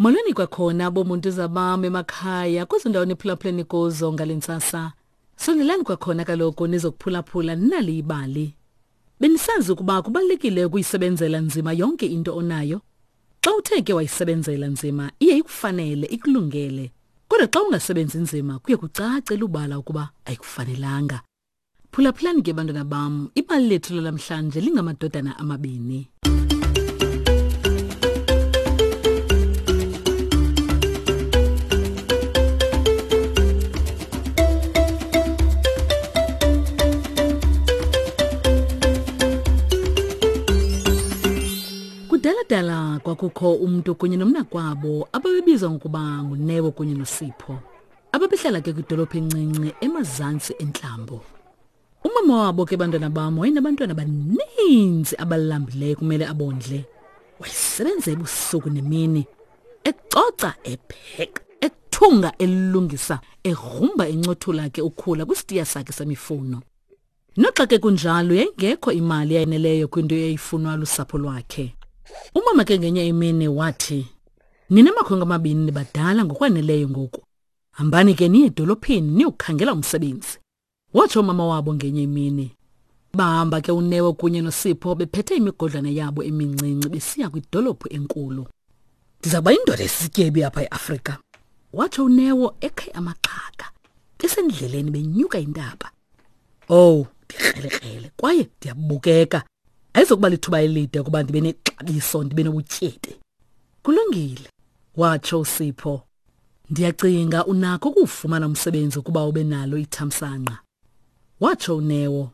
Molweni kwakhona bomuntu zabam emakhaya kwezo ndawo niphulaphuleni kuzo ngale ntsasa. Sondelani kwakhona kaloku nizokuphulaphula nali ibali. Benisazi ukuba kubalulekile ukuyisebenzela nzima yonke into onayo? Xa uthe ke wayisebenzela nzima iye ikufanele ikulungele. Kodwa xa ungasebenzi nzima kuye kucace lubala ukuba ayikufanelanga. Phulaphulani ke bantwana bam, ibali lethu lalamhlanje lingamadodana amabini. Kudala-dala kwakukho umntu kunye nomnakwabo ababebizwa ngokuba nguNeo kunye noSipho. Ababehlala ke kwidolophu encinci emazantsi entlambo. Umama wabo ke bantwana bam wayenabantwana abaninzi abalambileyo kumele abondle. Wayesebenza ebusuku nemini, ecoca, epheka, ethunga, elungisa, egrumba encothula ke ukhula kwisitiya sakhe semifuno. Noxa ke kunjalo yayingekho imali eyaneleyo kwinto eyayifunwa lusapho lwakhe. Umama ke ngenye imini wathi, Nina makhwenkwe amabini nibadala ngokwaneleyo ngoku. Hambani ke niye edolophini niyokukhangela umsebenzi. Watsho umama wabo ngenye imini. Bahamba ke uNeo kunye noSipho bephethe imigodlana yabo emincinci besiya kwidolophu enkulu. Ndiza kuba yindoda esisityebi apha eAfrika, watsho uNeo ekhe amaxhaka. Besendleleni benyuka intaba. Owu, ndikrelekrele kwaye ndiyabukeka. Ayizokuba lithuba elide ukuba ndibe nexabiso ndibe nobutyebi. Kulungile, watsho uSipho. Ndiyacinga unakho ukuwufumana umsebenzi ukuba ube nalo ithamsanqa. Watsho uNeo.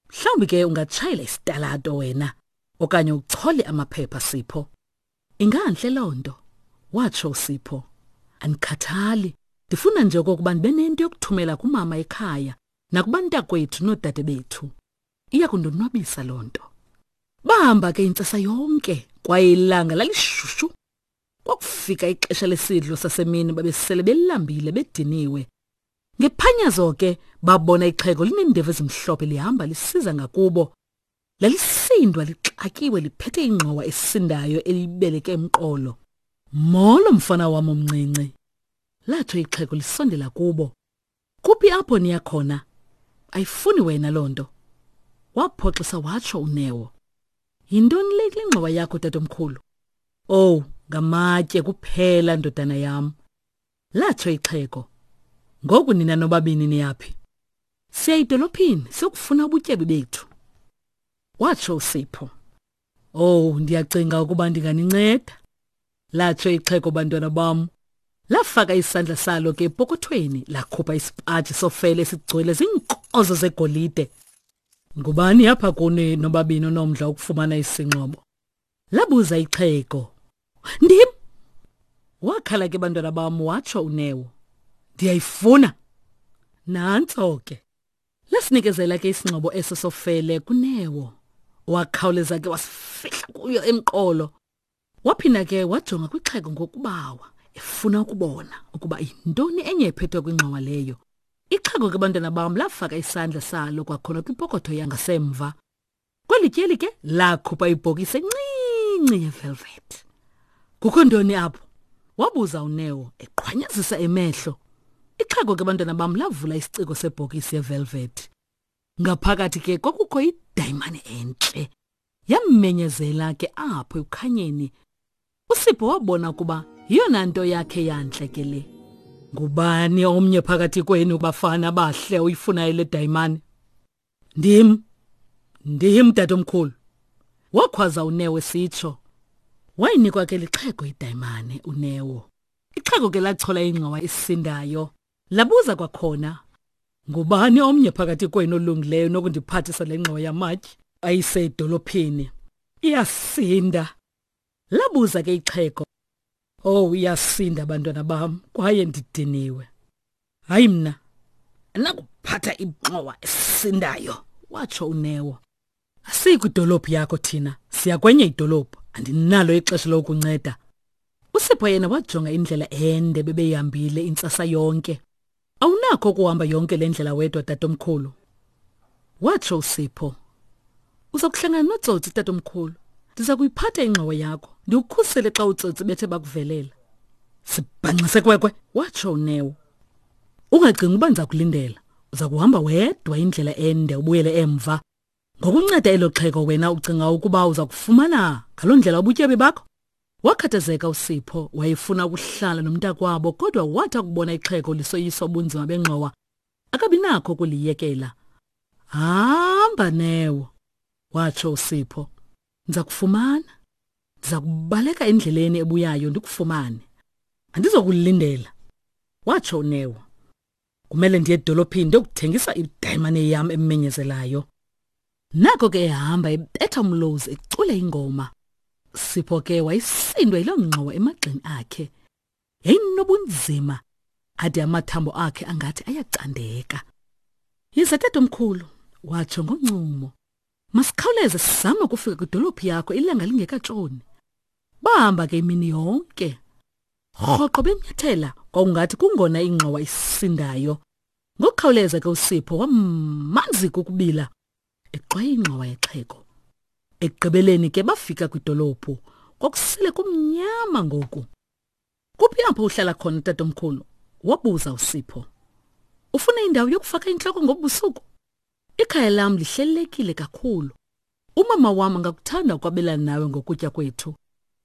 Mhlawumbi ke ungatshayela isitalato wena okanye uchole amaphepha Sipho. Ingantle loo nto, watsho uSipho. Andikhathali, ndifuna nje okokuba ndibe nento yokuthumela kumama ekhaya nakubantakwethu noodade bethu. Iya kundonwabisa loo nto. Bahamba ke intsasa yonke kwaye ilanga lalishushu. Kwakufika ixesha lesidlo sasemini babesele belambile bediniwe. Ngephanyazo ke babona ixhego lineendevu ezimhlophe lihamba lisiza ngakubo. Lalisindwa lixakiwe liphethe ingxowa esindayo elibeleke emqolo. Molo mfana wam omncinci. Latsho ixhego lisondela kubo. Kuphi apho niya khona? Ayifuni wena loo nto. Waphoxisa watsho uNeo. Yintoni le kule ngxowa yakho tatomkhulu? Owu, ngamatye kuphela ndodana yam. Latsho ixhego. Ngoku nina nobabini niyaphi? Siya edolophini siyokufuna ubutyebi bethu. Watsho uSipho. Oh, ndiyacinga ukuba ndinganinceda. Latsho ixhego bantwana bam. Lafaka isandla salo ke epokothweni lakhupha isipaji sofele esigcwele ziinkozo zegolide. Ngubani apha kuni nobabini onomdla wokufumana isingxobo? Labuza ixhego. Ndim! Wakhala ke bantwana bam watsho uNeo. Ndiyayifuna. Nantso ke. Lasinikezela ke isingxobo eso sofele kuNeo. Wakhawuleza ke wasifihla kuyo emqolo. Waphinda ke wajonga kwixhego ngokubawa efuna ukubona ukuba yintoni enye ephethwe kwingxowa leyo. Ixhego ke bantwana bam lafaka isandla salo kwakhona kwipokotho yangasemva. Kweli tyeli ke lakhupha ibhokisi encinci yevelvet. Kukho ntoni apho? Wabuza uNeo eqhwanyazisa emehlo. Ixhego ke bantwana bam lavula isiciko sebhokisi yevelvet. Ngaphakathi ke kwakukho idayimane entle. Yammenyezela ke apho ekukhanyeni. USipho wabona ukuba yiyona nto yakhe yantle ke le. Ngubani omnye phakathi kwenu bafana bahle oyifunayo le dayimane? Ndim. Ndim tatomkhulu. Wakhwaza uNeo esitsho. Wayinikwa ke lixhego idayimane uNeo. Ixhego ke lachola ingxowa esindayo. Labuza kwakhona, Ngubani omnye phakathi kwenu olungileyo nokundiphathisa le ngxowa yamatye ayise edolophini? Iyasinda. Labuza ke ixhego. Oh, iyasinda bantwana bam kwaye ndidiniwe. Hayi mna, andinakuphatha ingxowa esindayo, watsho uNeo. Asiyi kwidolophu yakho thina, siya kwenye idolophu. Andinalo ixesha lokunceda. USipho yena wajonga indlela ende bebeyihambile intsasa yonke. Awunakho ukuhamba yonke le ndlela wedwa tatomkhulu. Watsho uSipho. Uza kuhlangana notsotsi tatomkhulu. Ndiza kuyiphatha ingxowa yakho, ndikukhusele xa utsotsi bethe bakuvelela. Sibhanxise kwekwe, watsho uNeo. Ungacingi uba ndiza kulindela. Uza kuhamba wedwa indlela ende ubuyele emva. Ngokunceda elo xhego wena ucinga ukuba uza kufumana ngaloo ndlela ubutyebi bakho? Wakhathazeka uSipho, wayefuna ukuhlala nomntakwabo kodwa wathi akubona ixhego lisoyiswa ubunzima bengxowa, akabi nakho ukuliyekela. Hamba Neo, watsho uSipho. Ndiza kufumana. Ndiza kubaleka endleleni ebuyayo ndikufumane. Andizokulindela, watsho uNeo. Kumele ndiye edolophini ndiyokuthengisa idayimane yam emenyezelayo. Nako ke ehamba ebetha umlozi ecula ingoma. Sipho ke wayesindwa yiloo ngxowa emagxeni akhe. Yayinobunzima ade amathambo akhe angathi ayacandeka. Yiza tatomkhulu, watsho ngoncumo. Masikhawuleze sizame ukufika kwidolophu yakho ilanga lingekatshoni. Bahamba ke imini yonke. Rhoqo benyathela kwakungathi kungona ingxowa isindayo. Ngokukhawuleza ke uSipho wamanzi kukubila exwaye ingxowa yexhego. Ekugqibeleni ke bafika kwidolophu. Kwakusele kumnyama ngoku. Kuphi apho uhlala khona tatomkhulu? Wabuza uSipho. Ufuna indawo yokufaka intloko ngobusuku? Ikhaya lam lihlelelekile kakhulu. Umama wam angakuthanda ukwabelana nawe ngokutya kwethu.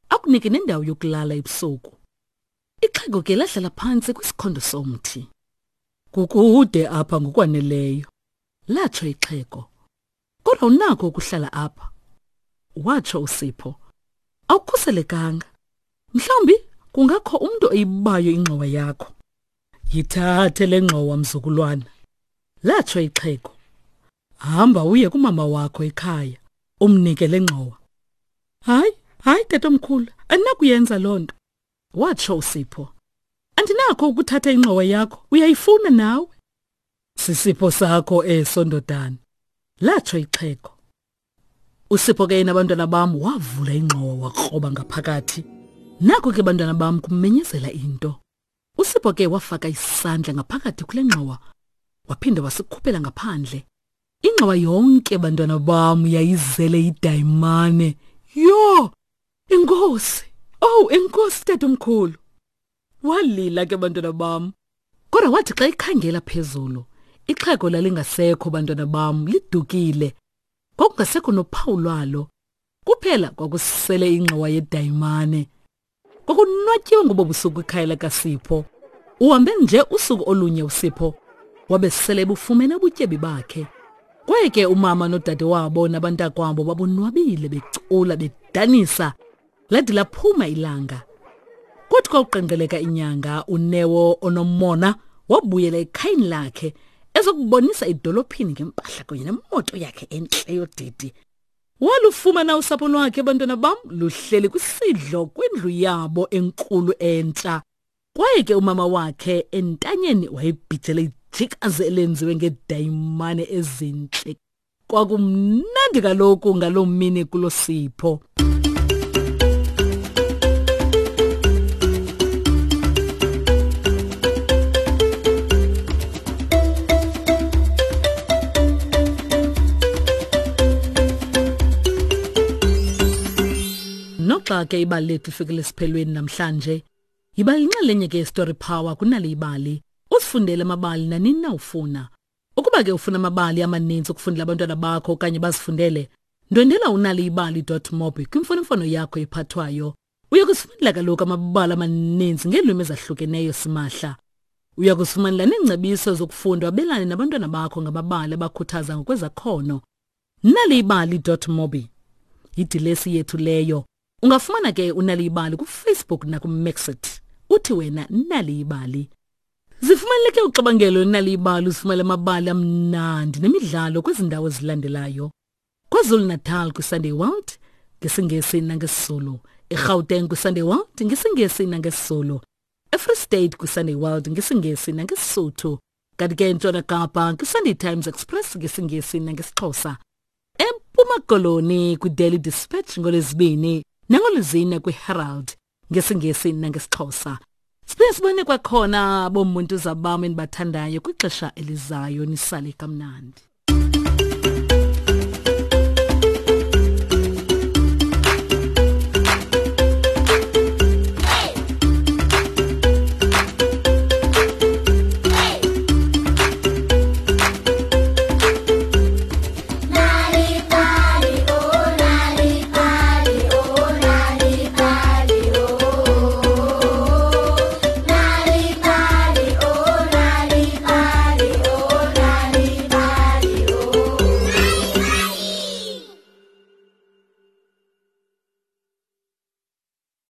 Akunike nendawo yokulala ebusuku. Ixhego ke lahlala phantsi kwisikhondo somthi. Kukude apha ngokwaneleyo, latsho ixhego. Kodwa unakho ukuhlala apha, watsho uSipho. Awukhuselekanga. Mhlawumbi kungakho umntu oyibayo ingxowa yakho. Yithathe le ngxowa mzukulwana, latsho ixhego. Hamba uye kumama wakho ekhaya, umnike le ngxowa. Hayi, hayi tatomkhulu, andinakuyenza loo nto, watsho uSipho. Andinakho ukuthatha ingxowa yakho, uyayifuna nawe. Sisipho sakho eso ndodana, latsho ixhego. Usipho ke yena bantwana bam wavula ingxowa wakroba ngaphakathi. Nako ke bantwana bam kumenyezela into. Usipho ke wafaka isandla ngaphakathi kule ngxowa waphinda wasikhuphela ngaphandle. Ingxowa yonke bantwana bam yayizele idayimane. Yho! Enkosi! Oh, enkosi tatomkhulu. Walila ke bantwana bam. Kodwa wathi xa ikhangela phezulu, ixhego lalingasekho bantwana bam lidukile. Kwakungasekho nophawu lwalo. Kuphela kwakusele ingxowa yedayimane. Kwakunwatyiwe ngobo busuku ikhaya likaSipho. Uhambe nje usuku olunye uSipho wabe sele ebufumene ubutyebi bakhe. Kwaye ke umama nodade wabo nabantakwabo babonwabile becula bedanisa lade laphuma ilanga. Kwathi kwawuqenqeleka inyanga uNeo onomona wabuyela ekhayeni lakhe ezokubonisa idolophini ngempahla kunye nemoto yakhe entle yodidi. Walufumana usapho lwakhe bantwana bam luhleli kwisidlo kwindlu yabo enkulu entsha. Kwaye ke umama wakhe entanyeni wayebhijele ijikazi elenziwe ngedayimane ezintle. Kwakumnandi kaloku ngaloo mini kulo Sipho. Noxa ke ibali lethu lifikile esiphelweni namhlanje, yiba yinxalenye ke yeStory Power kunale ibali. Usifundele amabali nanini na ufuna. Ukuba ke ufuna amabali amaninzi ukufundela abantwana bakho okanye bazifundele, ndwendela unaliyibali.mobi kwimfonomfono yakho ephathwayo. Uya kusifumanela kaloku amabali amaninzi ngeelwimi ezahlukeneyo simahla. Uya kusifumanela neengcebiso zokufunda wabelane nabantwana bakho ngamabali abakhuthaza ngokwezakhono. Naliyibali.mobi yidilesi yethu leyo. Ungafumana ke uNaliyibali kuFacebook nakuMixit. Uthi wena Naliyibali. Zifumaneleke uxabangelo Naliyibali uzifumele amabali amnandi nemidlalo kwezi ndawo zilandelayo. KwaZulu-Natal kwiSunday World ngesiNgesi nangesiZulu, eGauteng kwiSunday World ngesiNgesi nangesiZulu, eFree State kwiSunday World ngesiNgesi nangeSisuthu, kanti ke eNtshona Kapa kwiSunday Times Express ngesiNgesi nangesiXhosa, eMpuma Koloni kwiDaily Dispatch ngoLwezibini nangoLwezine kwiHerald ngesiNgesi nangesiXhosa. Siphinde sibone kwakhona bomuntu zabam endibathandayo kwixesha elizayo nisale kamnandi.